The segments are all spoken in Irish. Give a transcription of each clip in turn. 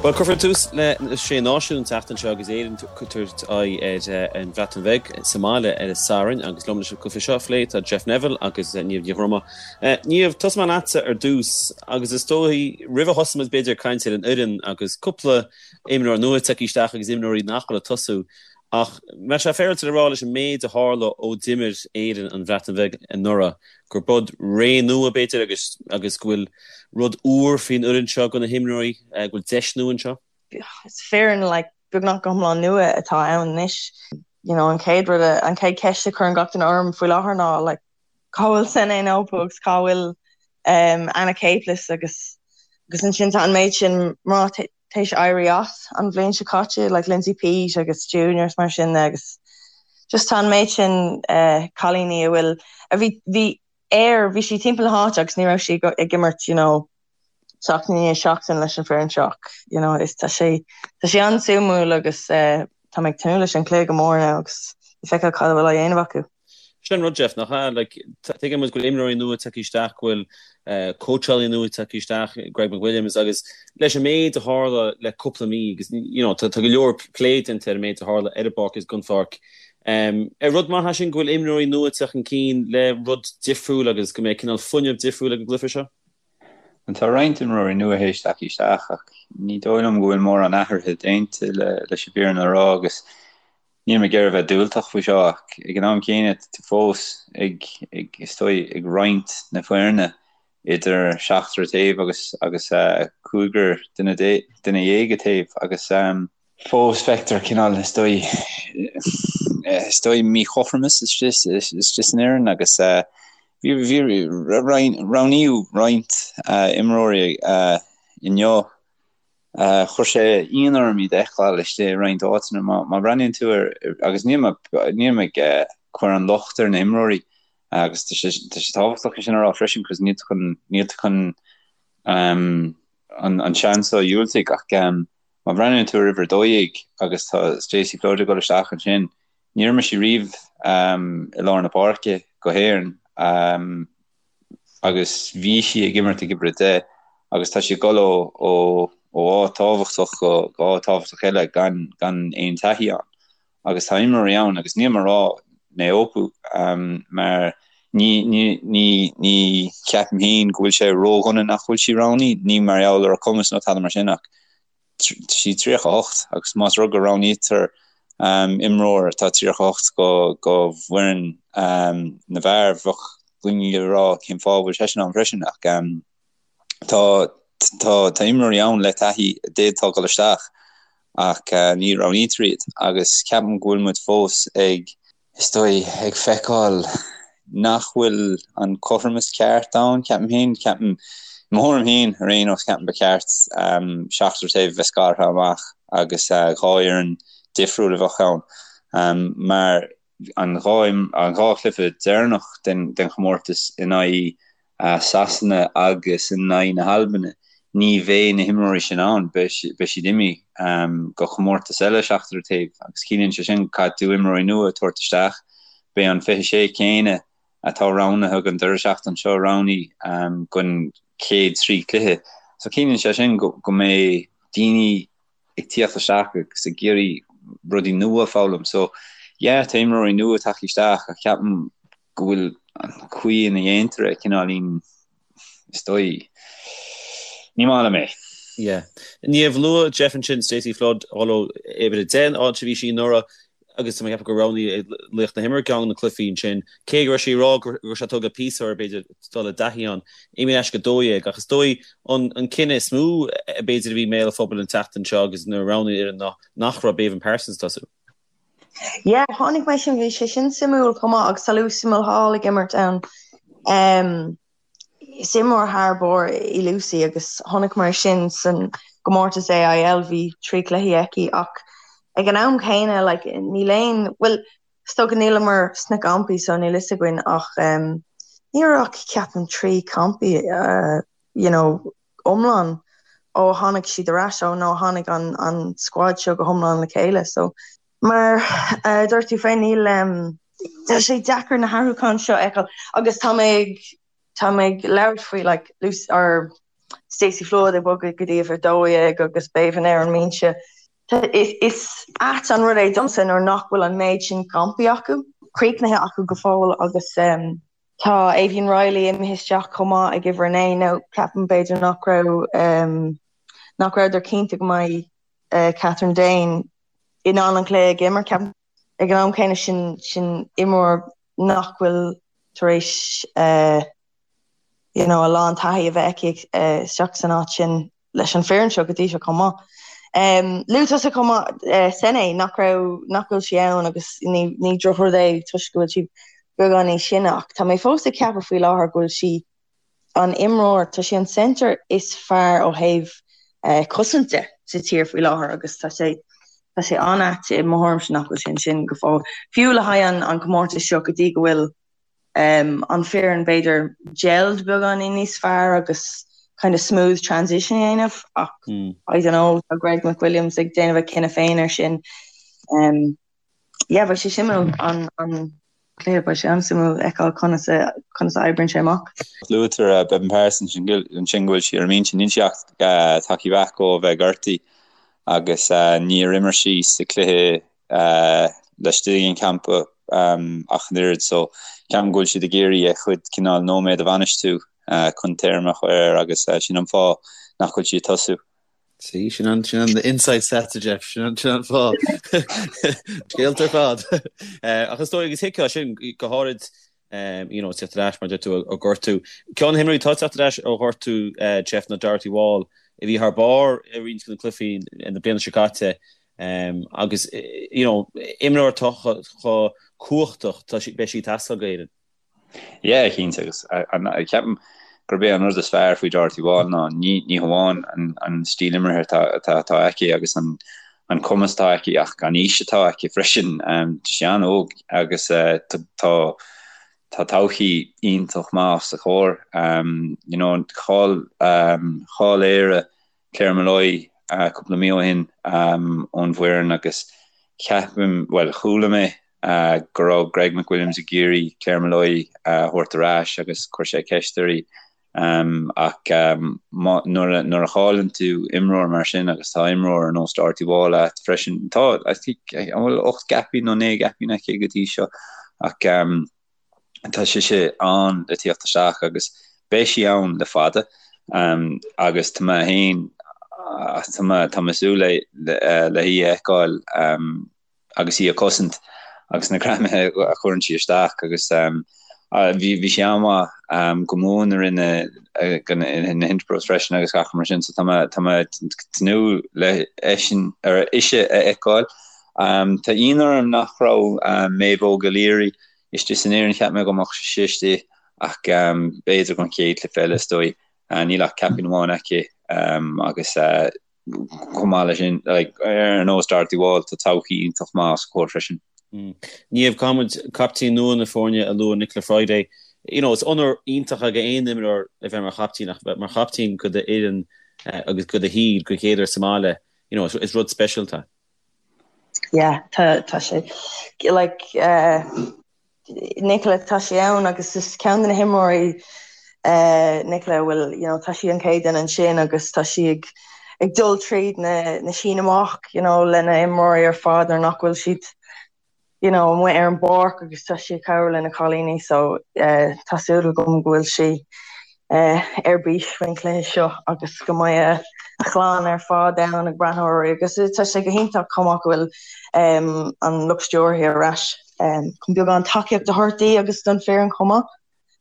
Bhuel, cuirfear tús le Sé Náisiún an tseachtain seo agus Éirinn ag tabhairt aghaidh ar an Bhreatain Bheag sa mbaile ar an Satharn agus liom leis an gcluiche seo a phlé tá Jeff Neville agus Niamh Ní Dhroma. Niamh, tosóidh mé leatsa ar dtús agus is dóigh roimh a thosóimid b'fhéidir ag caint ar an fhoireann agus cúpla imreoir nua tagtha isteach agus imreoirí nach bhfuil ag tosú ach mbeadh sé féaráilte le rá leis an méid a tharla ó d'imir Éirinn an Bhreatain Bheag anuraidh gur b'fhéidir ré nua b'fhéidir agus agus go bhfuil rud úr faoin fhoireann seo do na himreoirí, go bhfuil deis nua anseo? Is foireann like beagnach go hiomlán nua atá ann anois. You know, an chéad rud, an chéad cheist a chuireann gach duine orm faoi láthair ná like cá bhfuil Sene Naoupu agus cá bhfuil um, Anna Caplice agus agus ansin tá an méid sin mná théis éirí as an bhliain seo caite, like Lindsay Peat agus Junior is mar sin de agus just tá an méid sin uh, cailíní a bhfuil a bhí bhí air bhí siad timpeall na háite agus ní raibh siad ag imirt you know seachtain i ndiaidh seachtain leis an foireann seo you know is tá sé tá sé an-suimiúil agus uh, tá mé ag tnúth leis an cluiche go mór now agus le feiceáil cad a bhfuil á dhéanamh acu. Sin an rud, Jeff, nach ea? Like, tuigeann muid go bhfuil imreoirí nua tagtha isteach, go bhfuil cóitseálaí nua tagtha isteach, Greg McWilliams, agus leis an méid a tharla le cúpla mí, agus, you know, tá go leor plé déanta ar an méid a tharla ar an bpáirc agus den pháirc. Ar rud maith é sin go bhfuil imreoirí nua ag teacht chun cinn le rud difriúil agus go mbeidh cineál fuinneamh difriúil ag an gcluiche seo? Bhuel, tá roinnt imreoirí nua théis teacht isteach ach ní dóigh liom go bhfuil mórán athruithe déanta leis an bhfírinne a rá agus Níl mé ag iarraidh a bheith diúltach faoi seo ach ag an am céanna tá tú fós ag, ag, is dóigh, ag roinnt na foirne idir seachtar taobh agus, agus cúigear duine, duine dhéag taobh agus fós feictear cineál, is dóigh, is dóigh míchothromas istigh san fhoireann agus bhí, bhí, roghnaíodh roinnt imreoirí inniu Chuir sé ionadh orm iad a fheiceáil istigh i roinnt áiteanna. Má bhreathnaíonn tú ar, agus níl mé, níl mé ag cur an locht ar na himreoirí agus tá sé, tá sé tábhachtach é sin a rá freisin cos níl tú chun, níl tú chun an, an seans seo a dhiúltaigh ach má bhreathnaíonn tú ar uimhir 12 agus tá Stacey Flood ag dul isteach ansin, níor imir sí riamh i lár na páirce go hÉirinn. agus bhí sí ag imirt ag uimhir 10 agus tá sí ag dul ó ó ó áit tábhachtach go go áit tábhachtach eile gan gan aon taithí ann. Agus tá imreoirí ann agus níl mé ag rá Naoupu mar ní ní ní ní cheapaim féin go bhfuil sé ródhona nach bhfuil sí roghnaithe, ní mar gheall ar a cumas nó tada mar sin ach tá sí 38 agus más rud go roghnaítear imreoir atá 38 go go bhfoireann na bhfear, bheadh daoine ag rá cén fáth a bhfuil seisean ann freisin ach tá tá tá imreoirí ann le taithí a d'fhéadfadh dul isteach ach ní roghnaítear iad agus ceapaim go bhfuil muid fós ag is dóigh, ag feiceáil nach bhfuil an cothromas ceart ann, ceapaim féin. Ceapaim, i mo thuairim féin, ar aon nós, ceapaim ba cheart seachtar taobh a bheith scartha amach agus dhá fhoireann difriúil a bheadh ann mar an dhá an dhá chluiche deireanach den den chomórtas in aghaidh Sasana agus in aghaidh na hAlbana, ní bheidh na himreoirí sin ann, beidh siad imithe go comórtas eile seachtar taobh agus ciallaíonn sé sin caithfidh tú imreoirí nua a tabhairt isteach. Beidh an 26 céanna atá roghnaithe don deireadh seachtaine seo roghnaithe don chéad trí chluiche. So ciallaíonn sé sin go mbeidh daoine ag tíocht isteach agus ag iarraidh rudaí nua a foghlaim. So yeah, tá imreoirí nua tagtha isteach ach ceapaim go bhfuil an chaoi ina dhéantar é cineáilín, is dóigh, ní maith liom é. Yeah. Niamh, luaigh Jeff ansin Stacey Flood, although uimhir 10 an áit a bhí sí anuraidh agus tá mé ag ceapadh gur roghnaíodh laoch na himeartha ceann de na cluichí ansin, cé go raibh sí ag rá go raibh sé tógtha píosa uirthi b'fhéidir dul i dtaithí ann. Imithe ar ais go 12 ach is dóigh an an cinneadh is mó b'fhéidir a bhí i mbéal an phobail an tseachtain seo agus nuair a roghnaíodh an fhoireann ná nach raibh Béibhinn Parsons ag tosú. Yeah, chonaic mé sin, bhí sé sin suimiúil chomh maith agus tá Lucy Mulhall ag imirt ann. Um, is imreoir thar barr í Lucy agus chonaic mé sin san gcomórtas AIL, bhí trí chluichí aici ach ag an am céanna like, níl aon, bhuel, is dócha níleamar sna campaí so níl fhios againn ach um, ní raibh ach ceapaim trí campaí uh, you know, iomlán ó tháinig siad ar ais, ó nó tháinig an an squad seo go hiomlán le chéile. So mar a dúirt tú féin, níl tá sé deacair na hathrúcháin seo a fheiceáil agus tá mé ag tá mé ag labhairt faoi like Lucy or. Stacey Flood ag bogadh go dtí uimhir 12 agus Beibhinn ar an mbinse. Is ait an rud é domsa nuair nach bhfuil an méid sin campaí acu, críochnaithe acu go fóill agus tá Aoibheann Reilly imithe isteach chomh maith ag uimhir 9. Now ceapaim b'fhéidir nach raibh nach rabhadar cinnte go mbeidh Kathryn Dane in ann an cluiche a imirt. Ceapaim ag an am céanna sin sin imreoir nach bhfuil tar éis you know a lán taithí a bheith aici isteach san áit sin leis an foireann seo go dtí seo chomh maith. Luaigh tusa chomh maith Sene nach raibh nach bhfuil sí ann agus ní ní drochrud é toisc go bhfuil sí beagán níos sine ach tá mé fós ag ceapadh faoi láthair go bhfuil sí an imreoir, tá sí an centre is fearr ó thaobh cosaint de sa tír faoi láthair agus tá sé tá sé an-ait i mo thuairimse nach bhfuil sí ansin go fóill. Fiú le haghaidh an an comórtas seo go dtí go bhfuil an foireann b'fhéidir gelled beagáinín níos fearr agus kind of smooth transition a dhéanamh ach I don't know tá Greg McWilliams ag déanamh a chinneadh féin ar sin. Um, yeah, beidh sé suimiúil an an cluiche beidh sé an-suimiúil fheiceáil conas a conas a oibríonn sé amach. Luaitear uh, Beibhinn Parsons ansin go bhfuil sí ar an mbinse níl sí ach uh, tagtha back ó bheith gortaithe agus uh, níor imir sí sa cluiche laistigh den champa ach an oiread so ceapaim go bhfuil siad ag iarraidh a chuid cineál nóiméad a bhainistiú chun téarma a chur air agus sin an fáth nach bhfuil sí ag tosú. See, sin an, sin an inside stats a Jeff, sin an, sin an fáth. Scéalta ar fad. Ach is dóigh agus thuigfeá sin go háirid you know, teacht ar ais mar deir tú ó ghortú. Ceann de na himreoirí atá ag teacht ar ais ó ghortú Jeff ná Dorothy Wall a bhí thar barr i roinnt de na cluichí na bliana seo caite agus you know, imreoir atá chomh cumhachtach tá sí, beidh sí ag teastáil d'Éirinn. Yeah, cinnte agus ceapaim gurb é an rud is fearr faoi Dorothy Wall ná ní ní hamháin an an stíl imeartha atá atá aici agus an an cumas atá aici ach an aois atá aici freisin. Tá sí an-óg agus tá tá todhchaí iontach maith os a comhair. You know, chaill chaill Éire Claire Molloy cúpla mí ó shin ón bhfoireann agus ceapaim, bhuel chuala mé go raibh Greg McWilliams ag iarraidh Claire Molloy a thabhairt ar ais agus chuir sé ceist uirthi ach nuair a chailleann tú imreoir mar sin agus tá imreoir ar nós Dorothy Wall agat freisin, tá I think an bhfuil 8 gcaipín nó 9 gcaipín aici go dtí seo ach tá sise ann le tíocht isteach agus beidh sí ann le fada agus tá mé féin tá mé tá mé ag súil le le hí a fheiceáil agus í ag cosaint agus na greamaithe a chuireann sí isteach agus bhí bhí sí an-mhaith go mór i rith na na Interpros freisin agus gach mar sin so tá mé tá mé ag tnúth le eisean ar ise a fheiceáil. Tá ionadh orm nach raibh Maeve Óg O'Leary istigh san fhoireann, cheap mé go mbeadh sí istigh ach b'fhéidir don chéad chluiche eile is dóigh. Níl ach caipín amháin aici agus chomh maith leis sin, ar nós Dorothy Wall, tá todhchaí iontach maith os a comhair freisin. Niamh, caithfidh muid captaen nua na foirne a lua, Nicola Friday. You know, is onóir iontach ag aon imreoir a bheith mar chaptaen ach bheith mar chaptaen go d'fhoireann agus go do thír go chéad uair sa mbaile, you know, is rud speisialta. Yeah, tá tá sé like uh, Nicola tá sí ann agus is ceann de na himreoirí uh, Nicola bhfuil you know, tá sí an chéad duine ansin agus tá sí ag ag dul tríd na, na sín amach you know, lena imreoirí ar fad nuair nach bhfuil siad you know, amuigh ar an bpáirc agus tá sí ag cabhrú le na cailíní so uh, tá súil agam go bhfuil sí uh, ar bís faoin chluiche seo agus go mbeidh a chlann ar fad ann ag breathnú uirthi agus tá sé go hiontach chomh maith go bhfuil um, an lucht stiúrtha ar ais um, chun beagán tacaíocht a thabhairt di agus don foireann chomh maith.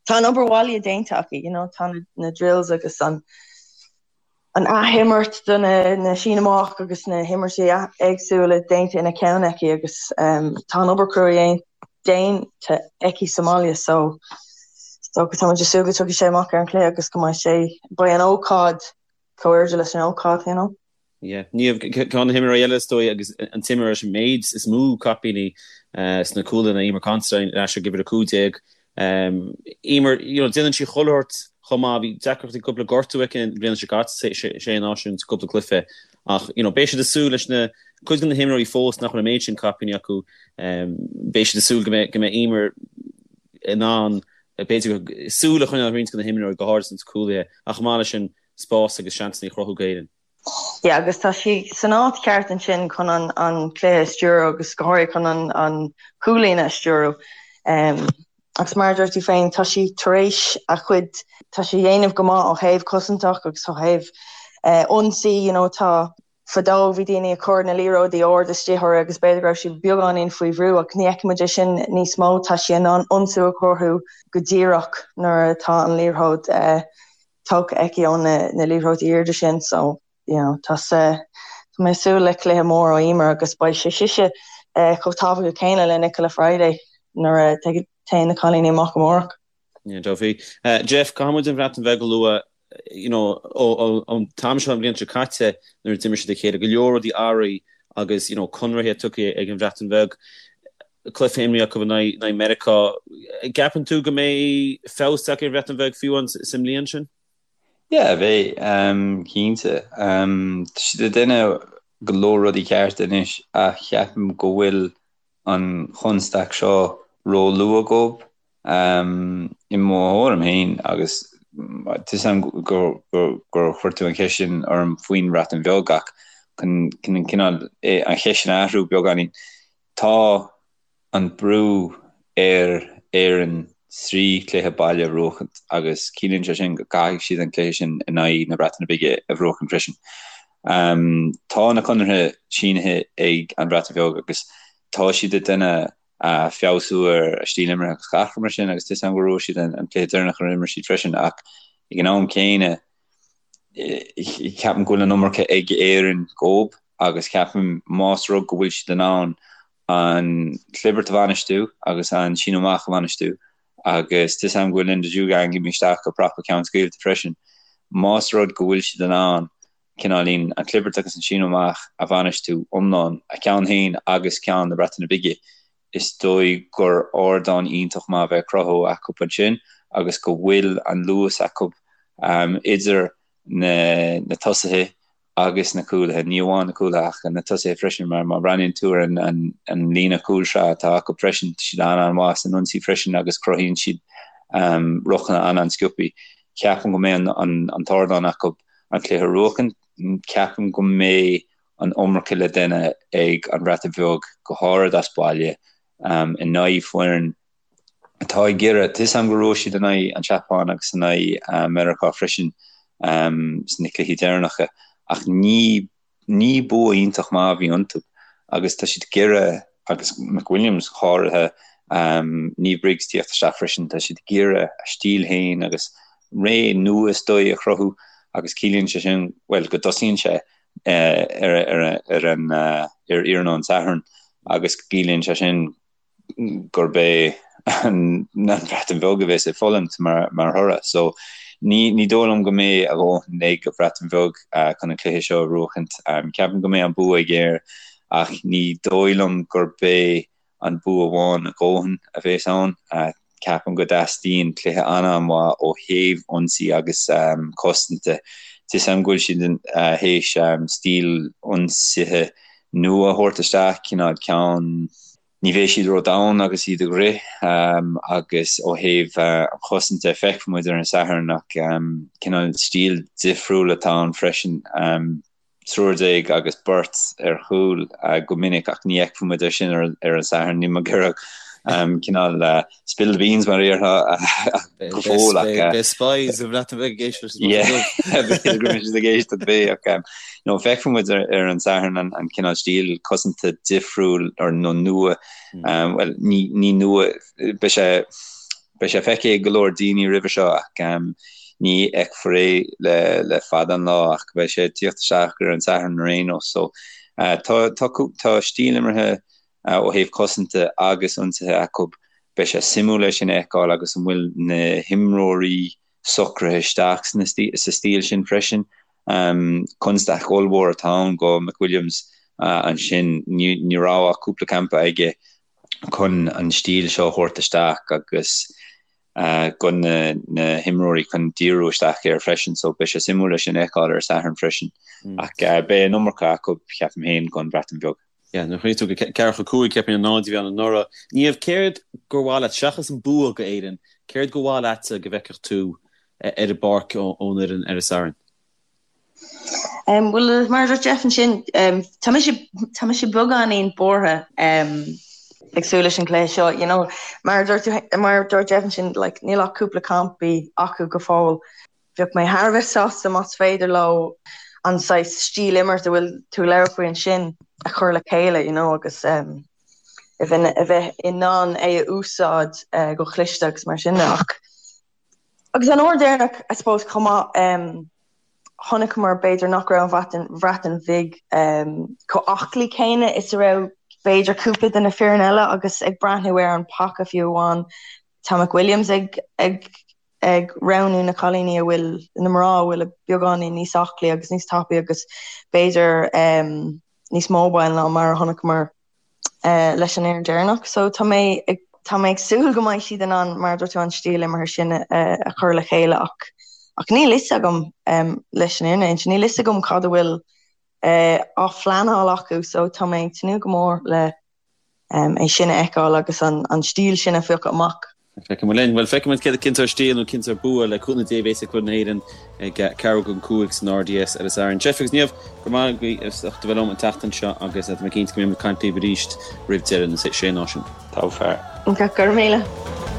Tá an obair bhaile déanta acu, you know, tá na, na drills agus an an athimirt do na sín amach agus na himirtí éagsúla déanta ina ceann aici agus tá an obair chrua déanta aici sa mbaile so so tá muid ag súil go dtiocfaidh sé amach ar an chluiche agus go mbeidh sé beidh an ócáid chomh airde leis an ócáid you know. Yeah. Niamh, ceann de na himreoirí eile is dóigh agus an t-imreoir leis an méid is mó caipíní sna cúlaithe ná Eimear Considine ar ais ag uimhir 15. Eimear, you know, déanann sí chuile shórt chomh maith, bhí deacrachtaí cúpla gortú aici an bhliain seo caite, sé náisiún sa cúpla cluiche ach, you know, beidh siad ag súil leis na cuid de na himreoirí fós nach bhfuil an méid sin caipíní acu, beidh siad ag súil go mbeidh go mbeidh Eimear in ann b'fhéidir súil a choinneáil ar roinnt de na himreoirí go háirid sna cúlaithe ach chomh maith leis sin. spás agus seansanna a chruthú d'Éirinn. Yeah, agus tá sí san áit cheart ansin chun an an cluiche a stiúradh agus go háirithe chun an an chúl-líne a stiúradh. Um, agus mar a dúirt tú féin, tá sí tar éis a chuid, tá sí a dhéanamh go maith ó thaobh cosantach agus ó thaobh uh, ionsaí, you know, tá fadó bhí daoine ag cur na liathróidí ard istigh uirthi agus b'fhéidir go raibh sí beagáinín faoi bhrú ach ní fheicimid é sin níos mó, tá sí in ann ionsú a chruthú go díreach nuair atá an liathróid uh, tógtha aici ó na liathróidí airde sin so you know tá tá mé ag súil le cluiche mór ó Emer agus beidh sé sise chomh tábhachtach céanna le Nichola Fryday nuair a téann na cailíní amach amárach. Yeah, definitely. Jeff, caithfidh muid an Bhreatain Bheag a lua you know ón t-am seo an bhliain seo caite nuair a d'imir siad a chéile, go leor rudaí athraithe agus you know conarthaí tugtha ag an Bhreatain Bheag. Cluiche imrithe acu in aghaidh Meiriceá. Gceapann tú go mbeidh feabhas tagtha ar an Bhreatain Bheag fiú sa mbliain sin? Yeah, beidh, cinnte. Tá siad ag déanamh go leor rudaí cearta anois ach ceapaim go bhfuil an chonstaic seo ró-luath dóibh. I mo thuairim féin, agus tá 'fhios a'm gur chuir tú an cheist sin orm faoin Bhreatain Bheag ach chun cineál an cheist sin a athrú beagáinín, Tá an brú ar Éirinn 3 chluiche baile a bhuachaint agus ciallaíonn sé sin go gcaithfidh siad an cluiche sin in aghaidh na Breataine Bige a bhuachaint freisin. Tá na conartha sínithe ag an Bhreatain Bheag agus tá siad ag déanamh feabhsú ar a stíl imeartha agus gach rud mar sin agus tá 'fhios a'm gur bhuaigh siad an cluiche deireanach ar imir siad freisin ach ag an am céanna ceapaim go bhfuil an iomarca ag Éirinn dhóibh agus ceapaim más rud go bhfuil siad in ann an chlibirt a bhainistiú agus an síneadh amach a bhainistiú agus tá 'fhios a'm go bhfuil Linda Djougang imithe isteach go prapa ceann scaoilte freisin, más rud go bhfuil siad in ann cineáilín an chlibirt agus an síneadh amach a bhainistiú iomlán, a ceann féin agus ceann na Breataine Bige, is dóigh gur ardán iontach maith a bheidh ag cruthú acu ansin agus go bhfuil an luas acu idir na tosaithe agus na cúlaithe, ní amháin na cúlaithe ach na tosaithe freisin mar má bhreathnaíonn tú ar an líne cúlsraith atá acu freisin, tá siad an-an-mhaith san ionsaí freisin agus cruthaíonn siad rucanna an-an-sciobtha. Ceapaim go mbeidh an t-ardán acu an cluiche a bhuachan, ceapaim go mbeidh an iomarca le déanamh ag an Bhreatain Bheag, go háirid as baile, in aghaidh foireann atá ag iarraidh, tá 'fhios a'm go raibh siad in aghaidh an tSeapáin agus in aghaidh Meiriceá freisin sna cluichí deireanacha, ach ní ní bua iontach maith a bhí iontu agus tá siad ag iarraidh, agus McWilliams go háirithe, Niamh Briggs tíocht isteach freisin, tá siad ag iarraidh a stíl féin agus ré nua is dóigh a chruthú agus ciallaíonn sé sin, bhuel, go dtosaíonn sé ar an ar iarnóin Sathairn agus ciallaíonn sé sin gurb é an Bhreatain Bheag a bheas ag fulaingt mar mar thoradh. So ní ní dóigh liom go mbeidh a dhóthain ag an Bhreatain Bheag chun an cluiche seo a bhuachaint. Ceapaim go mbeidh an bua ag Éire ach ní dóigh liom gurb é an bua amháin a dhóthain a bheas ann. Ceapaim go dteastaíonn cluiche an-an-mhaith ó thaobh ionsaí agus cosanta. Tá 'fhios a'm go bhfuil siad théis stíl ionsaithe nua a thabhairt isteach, cineál ceann, ní bheidh siad ró-dhomhain agus iad ag rith agus ó thaobh an chosanta feicfidh muid ar an Satharn ach cineál stíl difriúil atá ann freisin. 13 agus beirt ar chúl go minic ach ní fheicfidh muid é sin ar an Satharn. Níl mé ag iarraidh cineál spill the beans mar a déarfá go fóill ach. Beidh spies sa Bhreatain Bheag ag éisteacht leis an B'fhéidir go mbeidh siad ag éisteacht beidh ach no feicfidh muid ar an Satharn an cineál stíl cosanta difriúil nó nua bhuel ní nua beidh sé Beidh sé feicthe ag go leor daoine roimhe seo ach ní fheicfear é le fada an lá ach beidh sé ag tíocht isteach ar an Satharn ar aon nós. So tá tá stíl imeartha ó thaobh cosanta agus ionsaithe acu. Beidh sé suimiúil é sin a fheiceáil agus an bhfuil na himreoirí socraithe isteach sa stíl sin freisin. Constaic ollmhór atá ann go McWilliams ansin. Ní raibh ach cúpla campa aige chun an stíl seo a thabhairt isteach agus go na himreoirí chun díriú isteach air freisin so beidh sé suimiúil é sin a fheiceáil ar an Satharn freisin. Ach beidh an iomarca acu, ceapaim féin, don Bhreatain Bheag. Yeah, nuair a chuimhníonn tú go 4-5 ceapaim an 0 a bhí ann anuraidh. Niamh, céard gur mhaith leat, seachas an bua go Éirinn, céard gur mhaith leatsa go bhfeicfeadh tú ar an bpáirc ón fhoireann ar an Satharn? Bhuel, mar a dúirt Jeff ansin, tá mise, tá mise beagáinín buartha ag súil leis an gcluiche seo, you know. Mar a dúirt tú, mar a dúirt Jeff ansin, like, níl ach cúpla campaí acu go fóill. Bheadh mé thar a bheith sásta más féidir leo an saghas stíl imirt a bhfuil tú ag labhairt faoi ansin a chur le chéile, you know, agus a bheith, a bheith in ann é a úsáid go cliste agus mar sin de. Ach, agus an uair deireanach, I suppose, chomh maith, chonaiceamar b'fhéidir nach raibh an Bhreatain Bhig chomh aclaí céanna is a raibh b'fhéidir cúpla de na foireann eile agus ag breathnú ar an paca fiú amháin tá McWilliams ag ag ag roghnú na cailíní a bhfuil na mná a bhfuil beagáinín níos aclaí agus níos tapaí agus b'fhéidir níos mobile ná mar a chonaiceamar leis an fhoireann deireanach. So tá mé ag tá mé ag súil go mbeidh siad in ann, mar a dúirt tú, an stíl imeartha sin a chur le chéile ach ach níl fhios agam leis an fhírinne a inse, níl fhios agam cad a bhfuil á phleanáil acu so tá mé ag tnúth go mór le é sin a fheiceáil agus an stíl sin a phiocadh amach. Feicfidh muid linn. Bhuel, feicfidh muid céard a chinnteoidh stíl nó cinnteoidh bua le cúnamh Dé a bheas ag foireann na hÉireann ag ceathrú don 5 san RDS ar an Satharn. Jeff agus Niamh, go raibh maith agaibh as ucht a bheith liom an tseachtain seo agus tá mé cinnte go mbeidh muid ag caint libh arís roimh deireadh na Sé Náisiún. Tá fear. Go raibh míle.